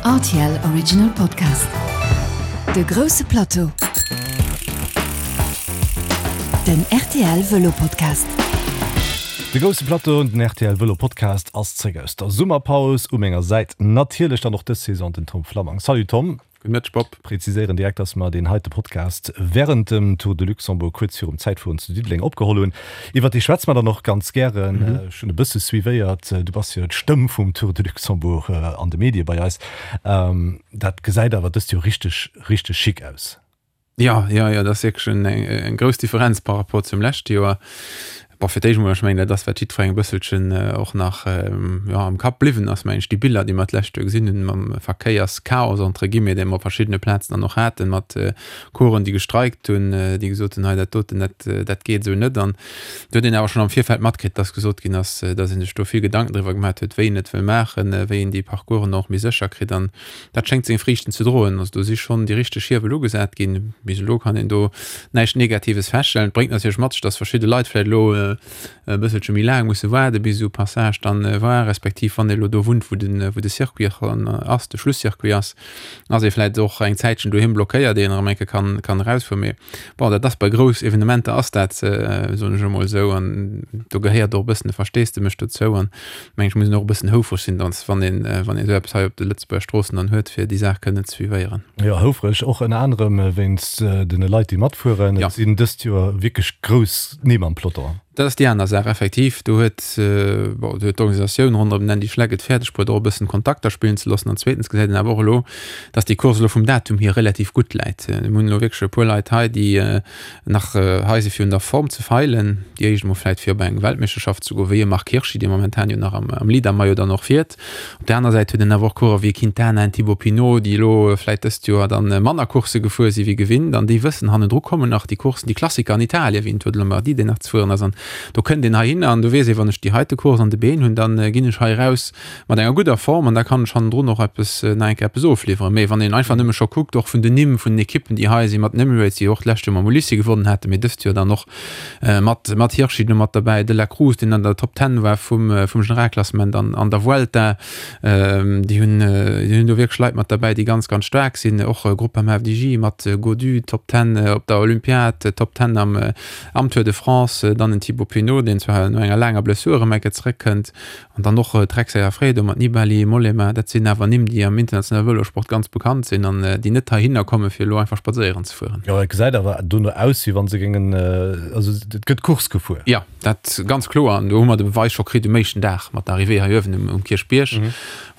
Rtl Original Podcast. De grousse Plateau. Den rtl Vëlo Podcast. De grousse Plateau, den rtl Vëlo Podcast ass zréck aus der Summerpaus. U menger Säit natierlech dann och dës Saison den Tom Flammang. Salut Tom. Gudde Mëtteg Bob. Präziséieren direkt, dass mer deen heite Podcast während dem Tour de Luxembourg kuerz virum Zäitfueren zu Diddeleng opgeholl hunn. Iwwert dee schwätze mer dann och ganz gären. Ech hunn e bësse suivéiert, du bass jo d'Stëmm vum Tour de Luxembourg an de Medie bei eis. Dat gesäit awer dëst Joer richteg, richteg chic aus. Jo, jo, jo, dat ass wierklech eng grouss Differenz par rapport zum leschte Joer. Bon, fir d'éischt emol, ech mengen, dat ass, wat jiddwerengem e bësselchen och nach, jo, am Kapp bliwwen ass, mengen ech, déi Biller, déi mer d'lescht Joer gesinn hunn, mam Verkéierschaos, entre guillemets, dee mer op verschiddene Plazen dann och haten, mat Coureuren, déi gestreikt hunn, déi gesot hunn, hei, dat doten, dat, dat geet esou net. An do huet een awer schonn am Virfeld matkritt, dass gesot ginn ass, dass ee sech do vill Gedanken driwwer gemaat huet, wéi een et wëll maachen, wéi een déi Parcoursen och méi sécher kritt. An Dat schéngt seng Friichten ze droen. Also do si schonn déi richteg Hiewel ugesat ginn. Bis elo kann een do näischt Negatives feststellen. Et bréngt natierlech mat sech, datt verschidde Leit vläicht elo e bësselche méi laang musse waarde bis esou Passage dann war, respektiv wann ee elo do wunnt, wou de wou de Circuit ass, de Schlusscircuit ass, ass ee vläicht och eng Zäitchen doheem blockéiert, ier een erëm eng Kéier kann kann erausfueren. Mee bon, dat ass bei grouss Evenementer ass dat, soen ech emol esou, an do gehéiert och e bëssen de Versteesdemech dozou. An Mengen ech muss een och e bëssen houfreg sinn, dann wann een wann een esou eppes hei op de Lëtzebuerger Stroossen dann huet, fir déi Saach kënnen ze suivéieren. Jo, houfreg och ënner anerem wéinst den Leit déi matfueren. Et sinn dëst Joer wierklech grouss Nimm am Peloton. Dat ass déi aner Saach, effektiv. Do huet, bon, do huet d'Organisatioun ronderëm den Andy Schleck et fäerdeg bruet och e bëssen Kontakter spillen ze loossen. An zweetens gesäit een awer och elo, datt déi Course elo vum Datum hier relativ gutt läit. Mir hunn elo wierklech e puer Leit hei, déi Nach hei si fir un der Form ze feilen. Déi éischt emol vläit fir op eng Weltmeeschterschaft ze goen, wéi e Marc Hirschi, dee momentan jo nach am Leader-Maillot dann och fiert. Op där aner Säit huet een awer och Coureur wéi e Quintana, en Thibaut Pinot, déi elo vläit dëst Joer dann manner Coursse gefuer si wéi gewinnt an déi wëssen, hannendru kommen nach déi Courssen, déi Klassiker an Italien, wéi en Tour de Lombardie, deen nach ze fueren ass. An do kënnt een heihinner an do weess ee, wann ech déi heite Course an de Been hunn, da ginn ech hei eraus mat enger gudder Form an da kann ech hannendrun och eppes, nach eng Kéier eppes ofliwweren. Mee wann een einfach nëmme scho kuckt, och vun den Nimm vun den Ekippen, déi hei sinn, mat den Emirates, déi och d'lescht Joer mam Ulissi gewonnen haten, mee dëst Joer dann och mat, mat Hirschi do mat derbäi, De La Cruz, deen an der Top Ten war vum, vum Generalklassement an, an der Vuelta, déi hunn, déi hunn do wierklech Leit mat derbäi, déi ganz, ganz staark sinn. Och Groupama FDJ mat Gaudu, Top Ten op der Olympiad, Top Ten am, am Tour de France, dann en Thibaut Pinot, deen zwar no enger laanger Blessur erëm eng Kéier zeréckkënnt. An dann och Trek Segafredo mat Nibali, Mollema, dat sinn awer Nimm, déi am internationale Vëlosport ganz bekannt sinn an déi net heihinner kommen, fir elo einfach spadséieren ze fueren. Jo, et gesäit awer dono aus, wéi wa se géingen, also et gëtt Course gefuer. Jo, dat ganz kloer. An do hu mer de Beweis scho kritt um éischten Dag mat der Arrivée hei uewen um Kierchbierg,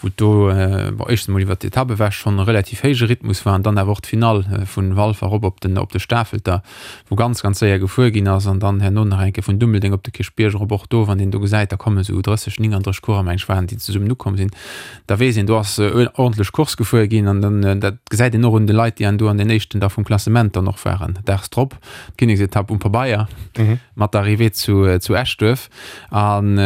wou et do, bon, éischtens emol iwwert d'Etapp ewech schonn e relativ héije Rhythmus war an dann awer och d'Finall vu Walfer erop op den, op de Stafelter, wou ganz, ganz séier gefuer ginn ass an dann herno nach eng Kéier vun Dummeldeng op de Kierchbierg erop. Och do, wann een do gesäit, da kommen esou 30, 39 Coureur, meng ech waren, déi zesummen ukomm sinn, da weess een, do ass ordentlech Course gefuer ginn an dann, dat gesäit een och un de Leit, déi an do an den éischten da vum Klassement dann och waren. Daags drop d'Kinneksetapp um Pabeier mat der Arrivée zu, zu Eschduerf an,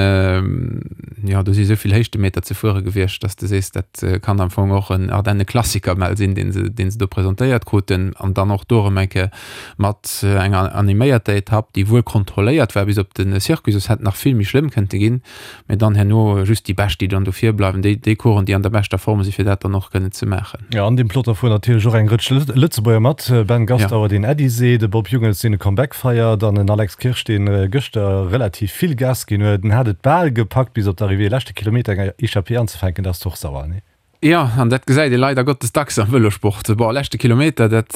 jo, do si esou vill Héichtemeter ze fuere gewiescht, dass de sees, dat kann am Fong och en Ardenne-Klassiker mell sinn, dee se, dee se do presentéiert kruten an dann och do erëm eng Kéier mat enger animéierter Etapp, déi wuel kontrolléiert war bis op de Circuit, soss hätt nach vill méi schlëmm kënnte ginn, mä dann herno just déi Bescht, déi dann do vir bleiwen, déi déi Coureuren, déi an der beschter Form sinn, fir dat dann och kënnen ze maachen. Jo, an deem Peloton fueren natierlech och eng Rëtsch Lëtzebuerger mat, Ben Gastauer, deen Äddi seet, e Bob Jungels, deen e Comeback feiert, an en Alex Kirsch, dee gëschter relativ vill Gas ginn huet. En hat et bal gepackt, bis op d'Arrivée, leschte Kilometer eng Echappée anzefänken, dat ass och sauer, nee? Jo, an dat gesäit ee leider Gottes dacks am Vëlosport. Bon, leschte Kilometer, dat,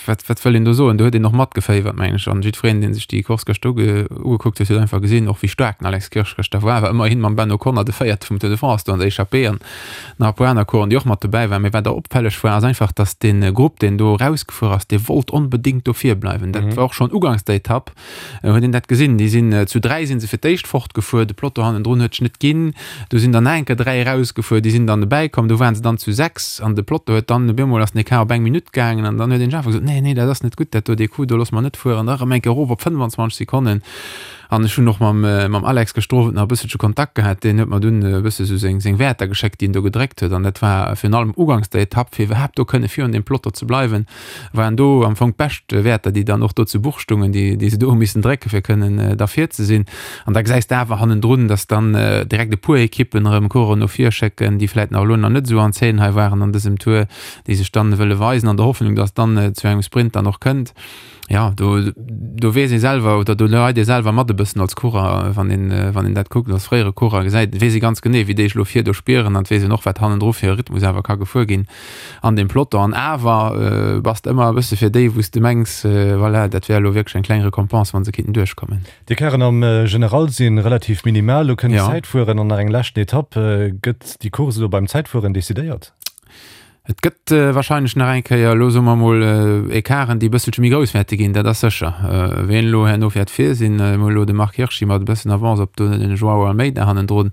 wat, wat wëll een do soen, do huet een och matgeféiwert, mengen ech. An jiddwereen, dee sech déi Course gëschter uge, ugekuckt huet, huet einfach gesinn, och wéi staark den Alex Kirsch gëschter war. War ëmmerhin mam Ben O'Connor de Véierte vum Tour de France do an der Echappée an nach e puer aner Coureuren, déi och mat dobäi waren. Mee wat och opfälleg war, ass einfach, datt dee Grupp, deen do erausgefuer ass, dee wollt onbedéngt do vir bleiwen. Dat war och schonn uganks der Etapp. Huet een dat gesinn? Déi sinn zu 3 sinn se fir d'éischt fortgefuer, de Peloton hannendrun huet sech net ginn. Du sinn dann nach eng Kéier 3 erausgefuer, déi sinn dann dobäi komm, du waren se dann zu 6 an de Peloton huet dann op eemol ass den Ecart op eng Minutt gaangen an dann huet een sech einfach gesot, nee, nee, dat ass net gutt dat do, dee Coup do loosse mer net fueren, da erëm eng Kéier erof op 25 Sekonnen. An ech hunn och mam, mam Alex gëschter Owend nach e bësselche Kontakt gehat. Deen huet mer dunn e bësse sou seng, seng Wäerter geschéckt, déi en do gedréckt huet. An dat war virun allem uganks der Etapp, fir iwwerhaapt do kënne virun deem Peloton ze bleiwen, waren do am Fong d'bescht Wäerter, déi dann och do zu Buch stungen, déi, déi se do hu missen drécke fir kënnen da vir ze sinn. An da gesäis de awer hannendrun, dass dann direkt e puer Ekippen erëm Coureuren no vir schécken, déi vläit nach elo nach net esou an Zeen hei waren an dësem Tour, déi sech dann wëlle weisen an der Hoffnung, dass dann zu engem Sprint dann och kënnt. Ja, do, do weess ee selwer oder do leit ee selwer mat e bëssen als Coureur, wann een, wann een dat kuckt, als fréiere Coureur gesäit, weess ee ganz genee, wéi déi sech elo vir do spieren an et weess een och, wat hannendru fir e Rhythmus awer ka gefuer ginn an deem Peloton. An awer bass de ëmmer e bësse fir déi, wou s de mengs, voilà, dat wär elo wierklech eng kleng Récompense, wa se kinnten duerchkommen. D'Ecarten am General si relativ minimal. Elo kënnt d'Zäitfueren an nach eng leschten Etapp. Gëtt déi Course elo beim Zäitfueren decidéiert? Et gëtt wahrscheinlech nach eng Kéier, elo soe mer emol, Ecarten, déi e bësselche méi grouss wäerte ginn, dat ass sécher. Wien elo herno wäert vir sinn, mir hu elo de Marc Hirschi mat e bëssen Avance op den Joao Almeida hannendrun.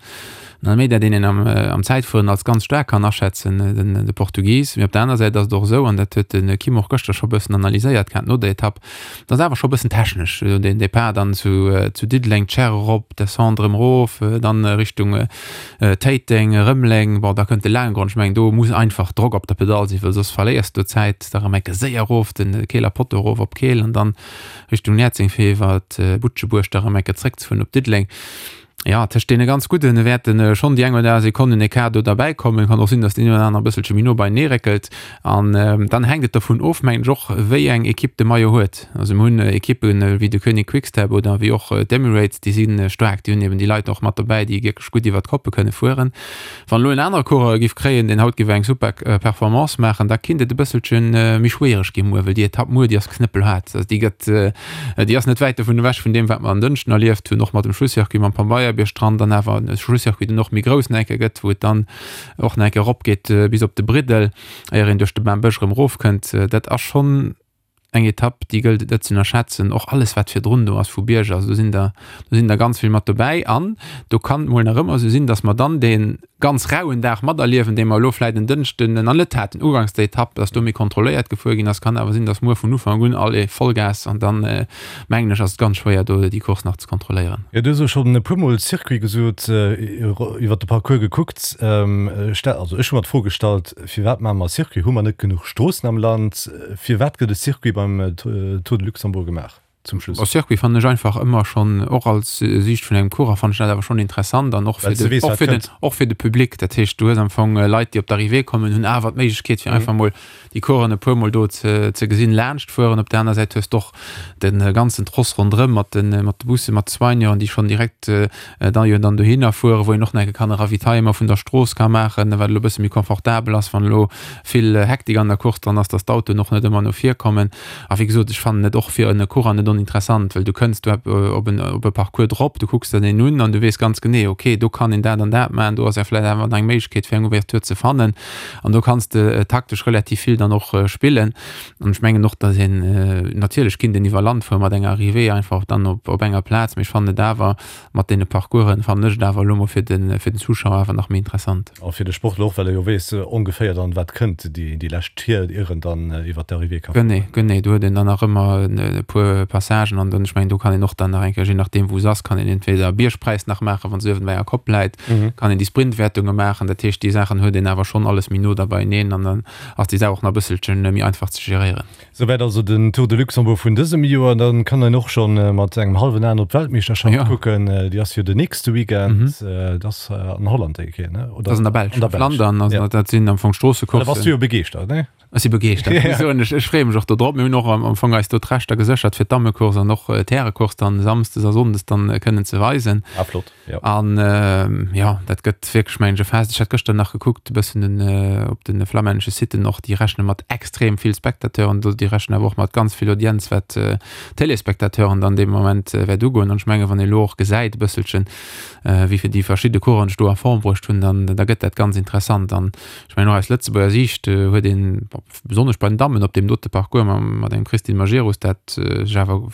Den Almeida, deen een am Zäitfueren als ganz staark kann aschätzen, den de Portugis. Mee op der aner Säit ass et och esou, an dat huet de Kim och gëschter scho e bëssen analyséiert gehat no der Etapp, dat ass awer scho e bëssen technesch, den Depart dann zu Diddeleng, d'Scherre erop, d'Descente erëm erof, dann Richtung Téiteng, Rëmeleng, bon da kënnt de Laanggrond, ech mengen do muss einfach Drock op der Pedall sinn, well soss verléiers du Zäit, da rëm enke séier erof de Keeler Potto erof op Keel an dann Richtung Näerzeng fir iwwer Butschebuerg da rëm enke zréckzefueren op Diddeleng. Jo, tëscht deene ganz Gudden wäerte schonn déi eng oder aner Sekonnen Ecart do derbäi kommen. Kann och sinn, datt deen een oder aner e bësselche méi no beienee réckelt an dann hänkt et dovun of, mengen ech och, wéi eng Ekipp de Maillot huet. Also mir hunn Ekippen wéi de Koenig Quick-Step oder wéi och d'Emirates, déi si staark, déi hunn eben déi Leit och mat dobäi, déi wierklech gutt iwwer d'Koppe kënne fueren. Wann elo en anere Coureur e giff kréien, deen haut giff eng super Performance maachen, da kinnt et e bësselche méi schwiereg gi muer, well déi Etapp muer, déi ass knëppelhaart. Also déi gëtt, déi ass net wäit dovun ewech vun deem, wat mer en Dënschden erlieft hunn, och mat dem Schlusscircuit mam Pambeierbierg dran, dann awer e Schlusscircuit, deen och méi grouss nach eng Kéier gëtt, wou et dann och nach eng Kéier eropgeet bis op de Briddel, éier een duerch de Bambësch erëm erofkënnt. Dat ass schonn eng Etapp, déi gëllt et net ze ënnerschätzen. Och alles, wat virdrun do ass vu Bierger, also do sinn der, do sinn der ganz vill mat dobäi. An do kann et mol nach ëmmer esou sinn, datt mer dann dee ganz rauen Dag materliewen, dee mer elo vläicht en Dënschden nach net haten, uganks der Etapp, datt do méi kontrolléiert gefuer ginn ass. Kann awer sinn, datt muer vun Ufank un allez, Vollgas an dann, mengen ech, ass et ganz schwéier, do déi Course nach ze kontrolléieren. Jo, du hues elo schonn e puermol Circuit gesot, iwwert de Parcours gekuckt. Also ech hu mer d'Fro gestallt, Firwat maache mer e Circuit? Hu mer net genuch Stroossen am Land? Firwat gëtt e Circuit beim Tour de Luxembourg gemaach zum Schluss? E Circuit fannen ech einfach ëmmer schonn, och als Siicht vun engem Coureur fannen ech dat awer schonn interessant an och fir de, och fir den, och fir de Public. Dat heescht, du hues am Fong Leit, déi op d'Arrivée kommen, hunn awer d'Méiglechkeet fir einfach mol déi Coureuren e puer mol do ze, ze gesinn, laanscht fueren. Op der aner Säit hues de och de ganzen Tross ronderëm mat de, mat de Bussen, mat de Soigneuren, déi schonn direkt da jo dann dohinner fueren, wou een och nach eng Kéier kann e Ravitaillement vun der Strooss ka maachen, wat elo e bësse méi confortabel ass, wann elo vill Hektik an der Course dran ass, dass d'Autoen och net ëmmer no vir kommen. A wéi gesot, ech fannen et och fir en Coureur net oninteressant, well du kënns do op en op e Parcours drop, du kucks der deen un an du weess ganz genee, okay, do kann een dat an dat maachen, do ass ja vläicht awer nach eng Méiglechkeet fir eng Ouverture ze fannen an do kanns de taktesch relativ vill dann och spillen. An ech mengen och, dass een, natierlech kinnt een iwwer Land fuere mat enger Arrivée einfach dann op op enger Plaz, mee ech fannen et awer mat deene Parcoursen, fannen ech et awer elo mol fir de fir den Zuschauer awer nach méi interessant. A fir de Sportler och, well e jo weess ongeféier dann, wat kënnt, déi déi lescht Tier, ier en dann iwwer d'Arrivée ka fueren. Genee, genee, do huet een dann nach ëmmer e puer Passagen an dann, ech mengen, do kann een och dann nach eng Kéier, je nachdeem wou se ass, kann een entweder Biergpräis nach maachen, wann se uewen bei enger Kopp läit, kann een déi Sprintwäertunge maachen. Dat heescht, déi Saachen huet een awer schonn alles méi no da beieneen an dann ass déi Saach och nach e bësselchen méi einfach ze geréieren. Souwäit also den Tour de Luxembourg vun dësem Joer. Dann kann een och schonn mat engem hallwen Aen op d'Weltmeeschterschaft ja. kucken. Déi ass jo den nächste Weekend. Mhm. Dat ass an Holland déi Kéier, ne? Oder? Dat ass an der Belsch. An der Belsch. Flandern, also ja. dat sinn am Fong Stroossecoursen. Da bass du jo begeeschtert, ne? Ech si begeeschtert. Ja. Soen, ech, ech freeë mech och do drop. Mir hunn och am, am Fong eis do d'Rechter geséchert fir d'Dammecourse an och d'Härecourse dann samsdes a sonndes dann kënnen ze weisen. Ah, flott. Ja. An jo, dat gëtt wierklech mengen ech e Fest. Ech hat gëschter nach gekuckt e bëssen den, op de flammännesche Siten och, déi rechne mat extrem vill Spectateuren do, déi rechnen awer och mat ganz vill Audienz, wat d'Téléspectateuren dann dee Moment wäert ugoen. An ech menge wann ee elo och gesäit e bësselchen, wéi vill déi verschidde Coureuren sech do a Form bruecht hunn, dann da gëtt dat ganz interessant. An ech mengen och aus Lëtzebuerger Siicht huet een, besonnesch bei den Dammen op deem dote Parcours mat engem Christine Majerus, dat sech awer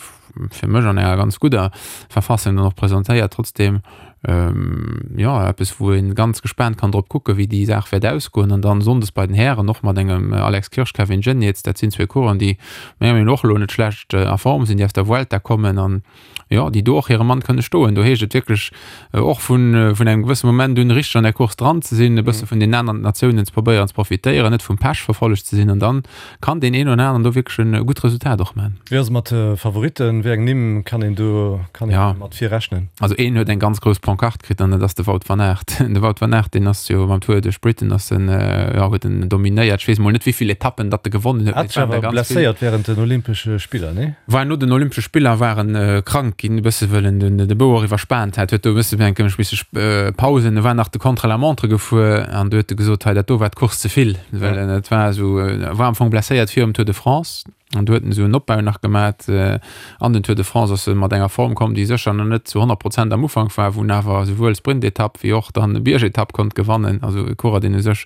fir mech an enger ganz gudder Verfassung dann och presentéiert, trotzdem. Jo, eppes wou een ganz gespaant kann drop kucken, wéi déi Saach wäert ausgoen. An dann Sonndes bei den Hären och mat engem Alex Kirsch, Kevin Geniets, dat sinn zwee Coureuren, déi menger Meenung no och elo net schlecht a Form sinn, déi aus der Vuelta kommen an jo, déi do och hire Mann kënne stoen. Do heescht et wierklech och vun vun engem gewësse Moment un richteg an der Course dran ze sinn, e bësse vun den aneren Natiounen ze probéieren ze profitéieren, net vum Pech verfollegt ze sinn an dann Kann deen een oder aneren do wierklech en gutt Resultat och man. Wéi ass et mat de Favoritten? Wéi eng Nimm kann een do kann een mat vir rechnen? Also een huet eng ganz grouss Pancarte kritt an dat ass de Wout van Aert. De Wout van Aert deen ass jo mam Tour duerch Britain ass en jo huet en dominéiert. Ech weess mol net wéivill Etappen datt e gewonnen huet, mee et waren der ganz vill. Blesséiert während den Olympesche Spiller, nee? War no den Olympesche Spiller war en krank ginn e bësse wëll en den de Bou och iwwerspaant hat, huet do e bësse eng bësse Pausen, e war nach de Contre-la-montre gefuer an du huet e gesot hei dat do war d'Course ze vill. Well en et war esou, e war am Fong blesséiert virum Tour de France an du huet en esou en Opbau nach gemat an den Tour de France ass e mat enger Form komm, déi sécher nach net zu 100 Prozent am Ufank war, wou en awer esouwuel Sprintetapp wéi och dann Biergetapp konnt gewannen. Also e Coureur, deen u sech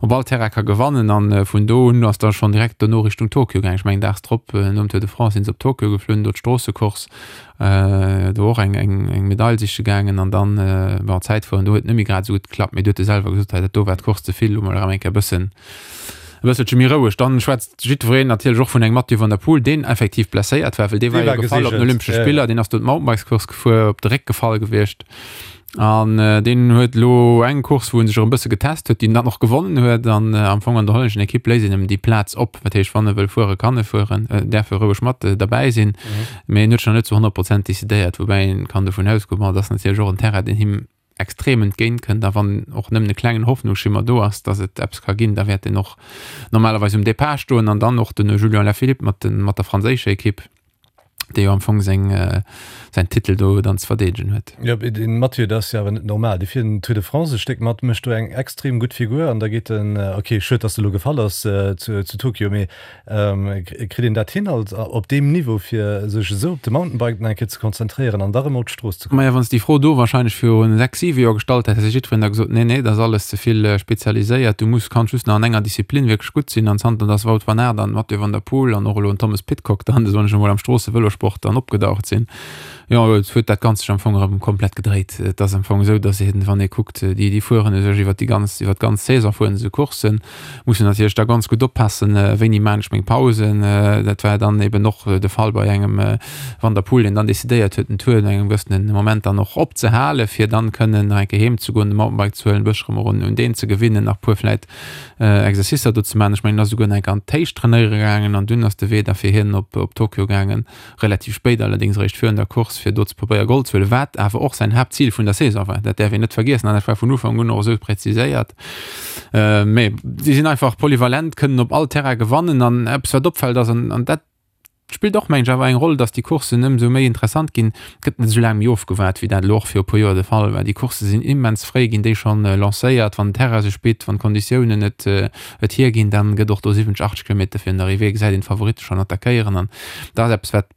op all Terrain ka gewannen an vun do un ass da schonn direkt dono Richtung Tokio gaangen. Ech mengen daags drop nom Tour de France sinn se op Tokio geflunn, do d'Stroossecourse. Do och eng eng eng Medail siche gaangen an dann bon Zäitfueren do huet net méi grad esou gutt geklappt, mee du huet e selwer gesot, hei dat do war d'Course ze vill, elo mol erëm eng Kéier e bëssen e bësselche méi roueg. Dann schwätzt jiddwereen natierlech och vun engem Mathieu van der Poel, deen effektiv blesséiert war, well dee war jo gefall op den Olympesche Spiller, deen ass do d'Mountainbikescourse gefuer, op de Réck gefall gewiescht. An deen huet elo eng Course, wou en sech erëm e bësse getest huet, déi en dann och gewonnen huet. An am Fong an der hollänneschen Ekipp léisst een em déi Plaz op. Dat heescht, wann e wëll fueren, kann e fueren, däerf e roueg mat derbäi sinn. Mee en huet sech nach net zu 100 Prozent decidéiert. Woubäi een kann dovun ausgoen, bon, et ass natierlech och en Terrain, deen him extrem entgéint kënnt. A wann och nëmmen e klengen Hoffnungsschimmer do ass, datt et eppes ka ginn, da wäert en och normalerweis um Depart stoen. An dann och den Julian Alaphilippe mat der franséischer Ekipp. dee jo am Fong seng, säin Titel do dann ze verdeedegen huet. Jo, mee den Mathieu, dat ass jo awer net normal. Dee fiert den Tour de France e Stéck mat, mécht do eng extrem gutt Figur an da geet en, ok, schued, datt e lo gefall ass zu Tokio, mee kritt een dat hin als op deem Niveau, fir sech esou op de Mountainbike nach eng Kéier ze konzentréieren an da rëm op d'Strooss ze kommen? Maja, wann s de déi Fro do warscheinlech viru 6, 7 Joer gestallt häss, hätt jiddwereen da gesot, nee, nee, dat ass alles ze vill spezialiséiert, du muss, kanns just nach an enger Disziplin wierklech gutt sinn. An zanter dass Wout van Aert an Mathieu van der Poel an och elo en Thomas Pidcock dann, soen ech emol, am Stroossevëlosport dann opgedaucht sinn, jo, et huet dat Ganzt sech am Fong erëm komplett gedréit. Et ass am Fong esou, dass een, wann ee kuckt, déi, déi fueren u sech iwwert déi ganz, iwwert d'ganz Saison fueren se Courssen, mussen natierlech da ganz gutt oppassen, wéini maan ech meng Pausen. Dat war dann eben och de Fall bei engem Van der Poel, deen dann decidéiert huet, den Tour no engem gewëssenen Moment dann och opzehalen, fir dann kënnen nach eng Kéier heem ze goen, de Mountainbike ze huelen, e bëssche erëm un deen ze gewinnen, nach e puer vläit Exercicer do ze maachen. Ech mengen, en ass esouguer nach eng Kéier an d'Héicht trainéiere gaangen an dunn ass de Wee da fir hien op op Tokio gaangen, relativ spéit allerdéngs, eréischt virun der Course, fir do ze probéiere Gold ze huelen, wat awer och säin Haaptzil vun der Saison war. Dat däerf een net vergiessen an dat war vun Ufank un och esou präziséiert. Mee si sinn einfach polyvalent, kënnen op all Terrain gewannen an eppes wat opfält ass, an dat spillt och mengen ech awer eng Roll, datt déi Courssen ëmsou méi interessant ginn, et gëtt net esou laang méi ofgewaart wéi dat elo och viru e puer Joer de Fall war. Déi Coursse sinn immens fréi ginn déi schonn lancéiert, wann den Terrain sech bitt, wann d'Konditiounen et et hierginn, dann gëtt och do 70, 80 Kilometer virun der Arrivée gesäit een d'Favoritte schonn attackéieren an dat ass eppes wat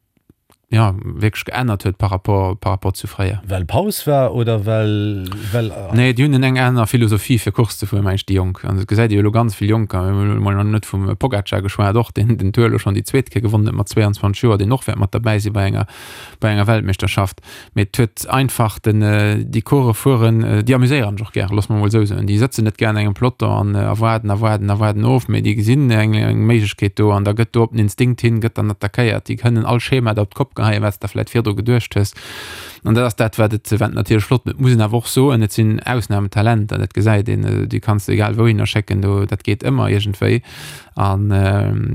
jo wierklech geännert huet par rapport par rapport zu fréier. Well Paus war oder well well. Nee, déi hunn eng aner Philosophie fir Course ze fueren, meng ech, déi Jonk. An et gesäit ee jo elo ganz vill Jonker, mir hunn elo mol nach net vum Pogacar geschwat, och deen den Tour elo schonn déi zweet Kéier gewonnen huet mat 22 Joer, deen och wäert mat derbäi si bei enger bei enger Weltmeeschterschaft. Mee et huet einfach den, déi Course fueren, déi amuséieren sech och gär, loosse mer emol esou soen. Déi sëtzen net gär an engem Peloton an erwaarden a waarden a waarden of, mee déi gesinn eng eng Méiglechkeet do an da gëtt do op den Instinkt hin, gëtt dann attackéiert. Déi kënnen all Schema da op d'Kopp geheien, wat s de der vläicht virdru geduecht hues. An dat ass dat, wat et wat natierlech flott mécht. Et muss een awer och soen, et sinn Ausnahmetalenter, dat gesäit een. Déi kanns de egal wouhinner schécken, do dat geet ëmmer iergendwéi. An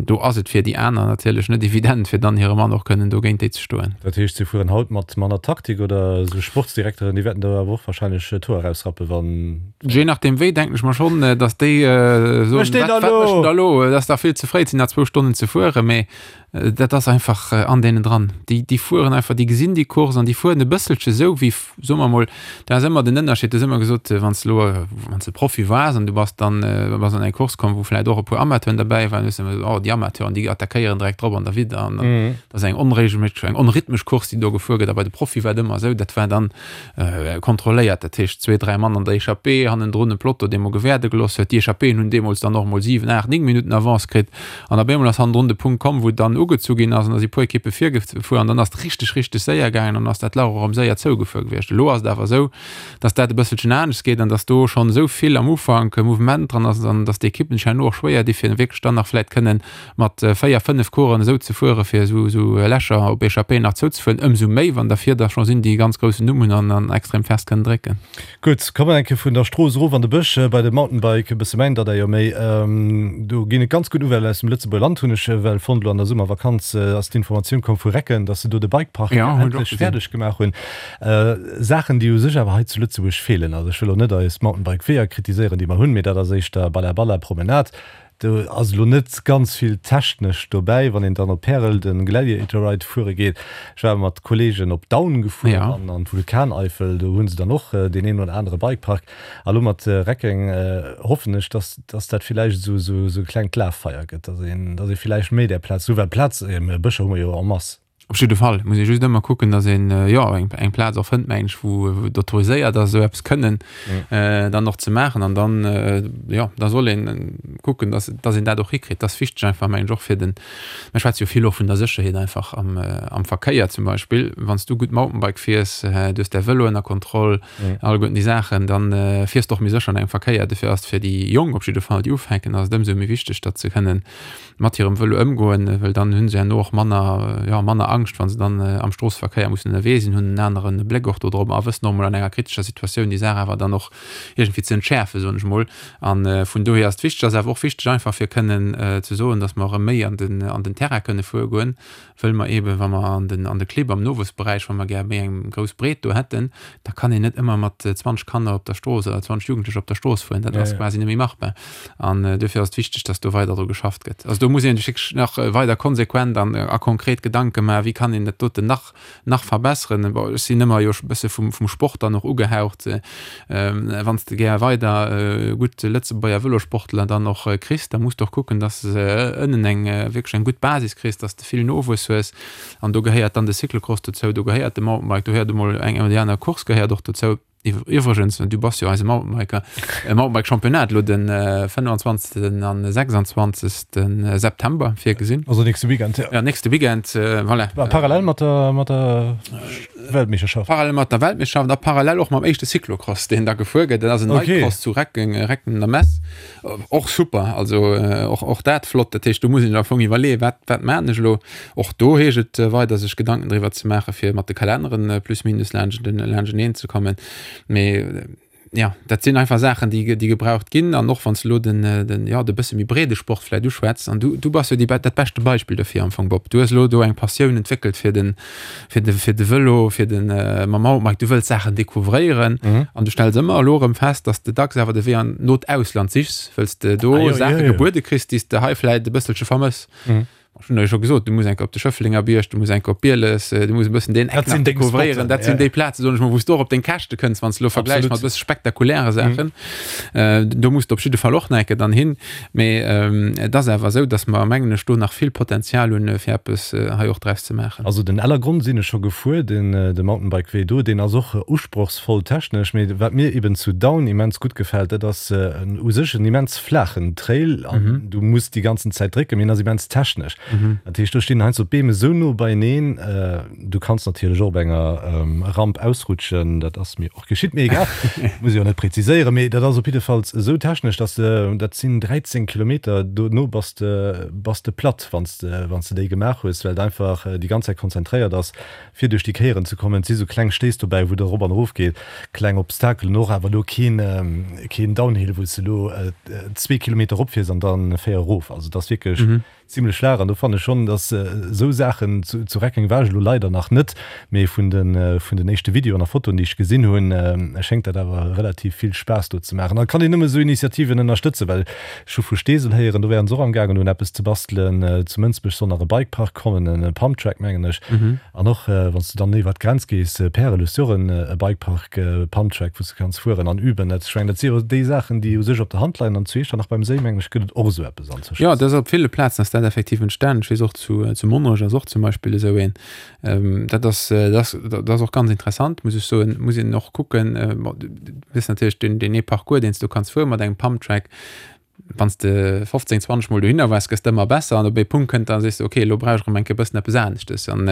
do ass et fir déi aner natierlech net evident, fir dann hire Mann och kënnen do géint déi ze stoen. Dat heescht, si fueren haut mat manner Taktik oder esou Sportsdirekteren, déi wäerten do awer och warscheinlech d'Hoer erausrappen, wann. Je nachdeem wéi, denken ech mer schonn, datt déi soen, Wat mécht deen da elo? Et ass dach vill ze fréi, et sinn nach zwou Stonnen ze fueren. Mee dat ass einfach an deenen dran. Déi, déi fueren einfach, déi gesinn déi Course an déi fueren e bësselche sou wéi, soe mer emol, dat ass ëmmer den Ënnerscheed, du hues ëmmer gesot, wann s de elo, wann s de Profi waars an du bass dann, bass an eng Course komm, wou vläicht och e puer Amateuren derbäi waren, hues de ëmmer gesot, oh déi Amateuren, déi attackéieren direkt drop an derwidder an dat ass eng onregelméisseg, eng onrhythmesch Course, déi do gefuer gëtt. A bei de Profie war et ëmmer esou, dat war dann kontrolléiert, dat heescht zwee, dräi Mann an der Echappée, hannendrun e Peloton, dee mol gewäerde gelooss huet. Déi Echappéen hunn deemools dann och mol 7, 8, 9 Minutten Avance kritt an op eemol ass hannendrun de Punkt komm, wou dann ugezu ginn ass an da si puer Ekippe virgefuer. an dann ass et richteg, richteg séier gaangen an ass dat Lach och erëm séier zougefuer gewiescht. Elo ass et awer esou, dass dat e bësselchen anescht geet an dass do schonn esou vill am Ufank Mouvement dran ass an dass d'Ekippen sech herno och schwéier di fir wierklech dann nach vläicht kënnen mat 4, 5 Coureuren esou ze fueren, fir esou esou Lächer op Echappéen nach zouzefueren, ëmsou méi wann dervir der scho sinn, déi e ganz groussen Numm hunn an an extrem fest kënnen drécken. Gutt, komme mer eng Kéier vun der Strooss erof an de Bësch bei de Mountainbike, e bësse mäin Dada jo méi. Do ginn et ganz gutt Nouvellen aus dem Lëtzebuerger Land, hunn ech well fonnt. Elo an der Summervakanz ass d'Informatioun komm vu Recken, datt se do de Bikepark endlech fäerdeg gemaach hunn. Saachen, déi u sech awer hei zu Lëtzebuerg feelen. Also ech wëll elo net eis Mountainbike-Weeër kritiséieren, déi mer hunn, mee dat ass éischter Balla Balla Promenade. Do ass elo net ganz vill technesch dobäi, wann een dann op Pärel de Gladiator Ride fuere geet. Ech war mat Kollegen op Daun gefuer an an d'Vulkaneifel, do hu se dann och deen een oder anere Bikepark. A lo mat Reckeng hoffen ech, dass dass dat villäicht esou esou e klengt Laffeier gëtt, dass een dass ee villäicht méi där Plaz, well Plaz, Bëscher hu mer jo en masse. Op jidde Fall muss ee just ëmmer kucken, datt een, jo, eng, eng Plaz och fënnt, meng ech, wou, wou et autoriséiert ass, esou eppes kënnen dann och ze maachen. An dann, jo, da soll een kucken, datt, datt een dat och hikritt. Dat ass wichteg einfach, meng ech, och fir den, mir schwätze jo vill och vun der Sécherheet einfach am, am Verkéier zum Beispill. Wann s du gutt Mountainbike fiers, du hues däi Vëlo ënner Kontroll, alleguerten déi Saachen, dann fiers de och méi sécher an engem Verkéier. Dofir ass et fir déi Jonk op jidde Fall, déi ufänken, ass et ëmsou méi wichteg, datt se kënnen mat hirem Vëlo ëmgoen, well dann hunn se herno och manner, jo, manner Angscht, wa se dann am Stroosseverkéier mussen ënnerwee sinn, hunn en anere Bléck och do drop a wëssen och mol an enger kritescher Situatioun déi Saach awer dann och iergendwéi ze entschäerfen, soen ech mol. A vun dohier ass et wichteg, ass awer och wichteg einfach fir kënnen ze soen, datt mer erëm méi an den, an den Terrain kënne fuere goen, wëll mer eeben, wa mer an den, an de Clibb am Nowuessberäich, wa mer gär méi eng grouss Breet do hätten, da kann een net ëmmer mat 20 Kanner op der Strooss oder 20 Jugendlecher op der Strooss fueren. Dat ass quasi net méi machbar. An duerfir ass et wichteg, dass do weider dru geschafft gëtt. Also do muss ee sech wierklech nach weider konsequent an a konkret Gedanke maachen, wéi kann een dat doten nach, nach verbesseren. Bon, ech sinn ëmmer jo e bësse vum, vum Sport dann och ugehaucht. Wann s de gär weider gutt Lëtzebuerger Vëlosportler dann och kriss, da muss de och kucken, dass de ënnen eng wierklech eng gutt Basis kriss, dass de vill Nowuess hues. An do gehéiert dann de Cyclocross dozou, do gehéiert de Mountainbike, do gehéiert emol eng oder déi aner Course gehéiert och dozou. Iwwregens, du bass jo eise Mountainbiker, e Mountainbike-Championnat elo de 25. an 26. September virgesinn. Also nächste Weekend, ja. Ja, nächste Weekend, voilà. Parallel mat der, mat der Weltmeeschterschaft. Parallel mat der Weltmeeschterschaft a parallel och mam éischte Cyclocross, deen da gefuer gëtt. Dat ass en okay. Nightcross zu Recken, Recken der Mess. Och super, also och, och dat flott. Dat heescht, do muss een am Fong iwwerleeën, wat, wat maan ech elo. Och do heescht et weider sech Gedanken driwwer ze maachen, fir mat de Kalenneren plus minus laanschteneen ze kommen. Mee ja, dat sinn einfach Saachen, déi, déi gebraucht ginn. An och wann s de elo den, den, ja, de bësse méi breede Sport vläicht uschwätz, an du, du bass jo déi, dat beschte Beispill dofir am Fong, Bob. Du hues elo do eng Passioun entwéckelt fir den, fir de, fir de Vëlo, fir den mam Mountainbike. Du wëlls Saachen decouvréieren an du stells ëmmer elo erëm fest, dass de dacks awer de Wee an no d'Ausland sichs, wëlls de do ah, jo, Saache jo, jo. gebuede kriss, déi s de hei vläicht e bësselche vermëss. Mhm. Ech hunn der jo scho gesot, du muss enke op de Schëfflenger Bierg, du muss enke op Bieles, du muss e bëssen deen Eck nach decouvréieren. Dat sinn déi Plazen, soen ech mol, wou s du och op deng Käschte kënns, wann s de elo vergläichs mat e bësse spektakuläre Saachen. Do muss de op jidde Fall och nach enke dann hin. Mee et ass awer esou, datt mer, mengen ech, do nach vill Potenzial hunn, fir eppes hei och draus ze maachen. Also den Ellergronn sinn ech scho gefuer, den de Mountainbike-Wee do, deen ass och usprochsvoll technesch. Mee wat mir eben zu Daun immens gutt gefält, dat ass u sech en immens flaachen Trail an du muss déi ganzen Zäit drécken, mee en ass immens technesch. Dat heescht, do stinn heiansdo d'Beem esou no beieneen, du kanns natierlech och op enger Ramp ausrutschen, dat ass mir och geschitt, mee egal, muss ech jo net präziséieren, mee dat ass op jiddefalls esou technesch, dass de, dat sinn 13 Kilometer, dono bass de, bass de platt, wann s de, wann s de déi gemaach hues, well et einfach déi ganz Zäit konzentréiert ass. fir duerch déi Kéieren ze kommen. Et si sou kleng Stéiss dobäi, wou et erop an erof geet, kleng Obstakelen och, awer elo keen, keen Downhill, wou s de elo zwee Kilometer eropfiers an dann 4 erof. Also et ass wierklech zimlech flaach an do fannen ech schonn, dass esou Saachen, zu, zu Reckeng war ech elo leider nach net, mee vun de, vun den éischte Videoen a Fotoen, déi ech gesinn hunn, schéngt dat awer relativ vill Spaass do ze maachen. An et kann een nëmme esou Initiativen ënnerstëtzen, well Ech hu vu Steesel héieren, do wären se och am gaangen un eppes ze bastelen. Zu Mënsbech soll nach e Bikepark kommen, e Pumptrack mengen ech. An och wann s du dann iwwert d'Grenz gees, Pärel, hues du och e Bikepark, e Pumptrack, wou s du kanns fueren an üben. Dat, ech mengen, dat si jo déi Saachen, déi u sech op der Hand leien. An zu Iechternach beim Séi, mengen ech, gëtt et och esou eppes anzwëschen. Jo, dat ass op ville Plazen ass dat effektiv entstanen. Ech weess och zu zu Monnerech ass och zum Beispill esou een. Dat ass, dat ass, dat ass och ganz interessant, muss ech soen. Muss een och kucken, bon, du hues natierlech deen, deen ee Parcours, deen s du kanns fuere mat engem Pumptrack. Wann s de 15, 20 Mol dohinner waars, gëss de ëmmer besser an op ee Punkt kënnt dann, sees de, ok, elo brauch ech erëm eng Kéier e bëssen eppes aneschtes. An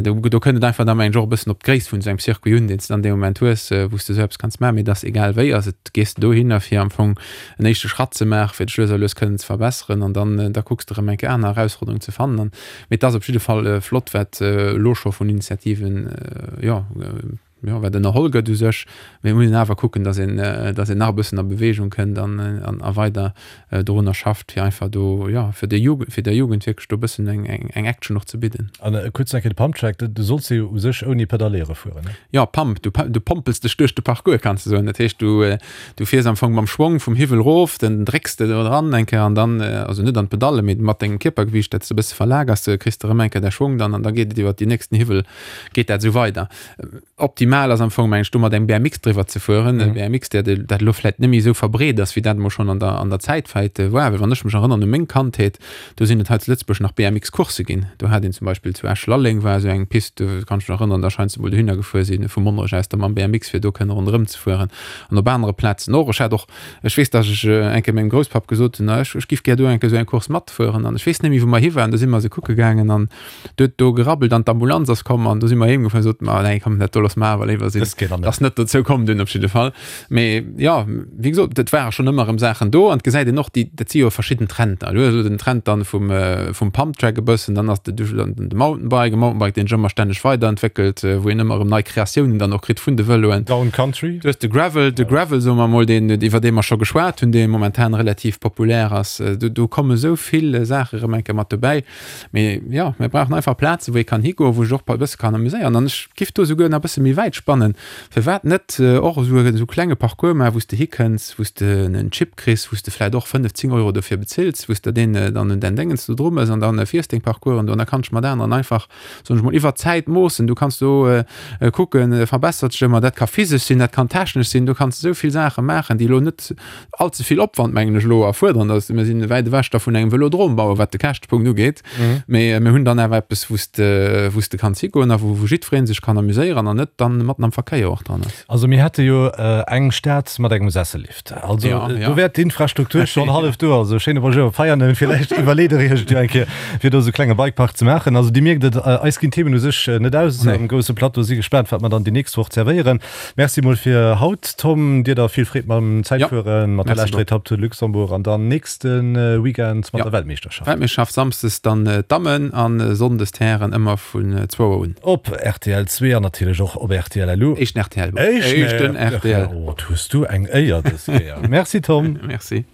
do, do kënnt et einfach da mengen ech och e bëssen op d'Gréisst vun esou engem Circuit un, deen s de dann dee Moment hues, wou s de esou eppes kanns maachen. Mee et ass egal wéi, ass et, gees de dohinner fir am Fong en éischte Schratt ze maachen, fir dech lues a lues kënnen ze verbesseren an dann, da kucks de erëm eng Kéier aner Erausforderungen ze fannen. An, mee et ass op jidde Fall flott, wat elo scho vun Initiativen, jo, jo, wat ënnerholl gëtt u sech, mee et muss een awer kucken, datt een, datt een nach e bëssen a Beweegung kënnt an, an a weider dorunner schafft, fir einfach do, jo, fir der Jugend, fir der Jugend wierklech do e bëssen eng, eng, eng Action och ze bidden. An kuerz nach eng Kéier de Pumptrack, du solls jo u sech ouni Pedalléiere fueren, ne? Jo, Pump, du, du pompels dech duerch de Parcours, kanns de soen. Dat heescht, du, du fiers am Fong mam Schwong vum Hiwwel erof, dann drécks de do dran eng Kéier an dann, also net an d'Pedalle, mee mat dengem Kierpergewiicht, dat s de e bësse verlagers, kriss de erëm eng Kéier däi Schwong dann an da geet et iwwert déi nächsten Hiwwel, geet dat esou weider. Optimal ass am Fong, meng ech, do mat engem BMX driwwer ze fueren. E BMX, der, dat elo vläit net méi esou verbreet ass, wéi dat emol schonn an der, an der Zäit vläit war. Well wann ech mech erënnern u meng Kandheet, do sinn et hei zu Lëtzebuerg nach BMX-Coursse ginn. Do hat een zum Beispill zu Esch-Lalleng war esou eng Pist, do kann ech mech nach erënnern, da scheint se emol dohinner gefuer sinn, vu Monnerech aus da mam BMX, fir do kënne ronderëm ze fueren. An op anere Plazen och. Ech hat och, ech weess, datt ech eng Kéier mengem Grousspapp gesot hunn, ech, ech giff gär do eng Kéier esou eng Course matfueren. An ech weess net méi, wou mer hi waren, do si mer se kucke gaangen an Do huet do gerabbelt an d'Ambulanz ass komm an do si mer heem gefuer an soten, ma nee komm, dat do loosse mer awer léiwer sinn. Ass net dozou komm dunn op jidde Fall. Mee jo, wéi gesot, et ware schonn ëmmer erëm Saachen do an et gesäit een och déi, dat si jo verschidden Trender. Du hues elo den Trend dann vum, vum Pumptrack e bëssen, dann ass de de Mountainbike, e Mountainbike deen sech ëmmer stänneg weiderentwéckelt, wou een ëmmer erëm nei Kreatiounen dann och kritt vun de Vëloen. Down Country. Du hues de Gravel, de Gravel soe mer emol, deen, iwwer dee mer scho geschwat hunn, dee momentan relativ populär ass. Do, do komme sou vill Saache erëm eng Kéier mat dobäi. Mee jo, mir brauchen einfach Plazen, wou ee kann higoen, wou sech och e bësse kann amuséieren. An ech giff do souguer nach e bësse méi wäit spannen, Firwat net och esou e klenge Parcours maachen, wou s de hikënns, wou s de en Chip kriss, wou s de vläicht och 5, 10 Euro dofir bezills, wou s de deen dann un däin Déngens do dru mëss an dann fiers deng Parcoursen do an da kanns de mat aneren einfach, soen ech mol, iwwer d'Zäit moossen. Du kanns do kucken, verbessert sech ëmmer. Dat ka physesch sinn, dat kann technesch sinn, do kanns de esou vill Saache maachen, déi elo net all ze vill Opwand, mengen ech elo, erfuerderen. Dass mir sinn wäit ewech da vun engem Velodrom bauen, wat de Käschtepunkt ugeet. Mee mir hunn dann awer eppes, wou s de, wou s de kanns higoen a wou, wou jiddweree sech kann amuséieren an net dann matten am Verkéier och dran ass. Also mir hätte jo eng Stad mat engem Sessellift. Also do wär d'Infrastruktur schonn hallef do. Also schéine Bonjour Veianen, villäicht iwwerleet Der Iech et jo eng Kéier, fir do esou e klenge Bikepark ze maachen. Also Dir mierkt et, eis ginn d'Themen u sech net aus am grousse Plateau. Si gespaant, wat mer dann déi nächst Woch zerwéieren. Merci mol fir haut Tom, dir da vill Freed mam Zäitfueren, mat der leschter Etapp Tour de Luxembourg an dann nächste Weekend mat der Weltmeeschterschaft. Weltmeeschterschaft Samsdes dann d'Dammen an Sonndes d'Hären ëmmer vun zwou Auer un. Op rtl 2 an natierlech och op rtl LU. Éischten rtl. Éischten rtl. Oh, hues du eng Éier dës Kéier. Merci Tom. Merci.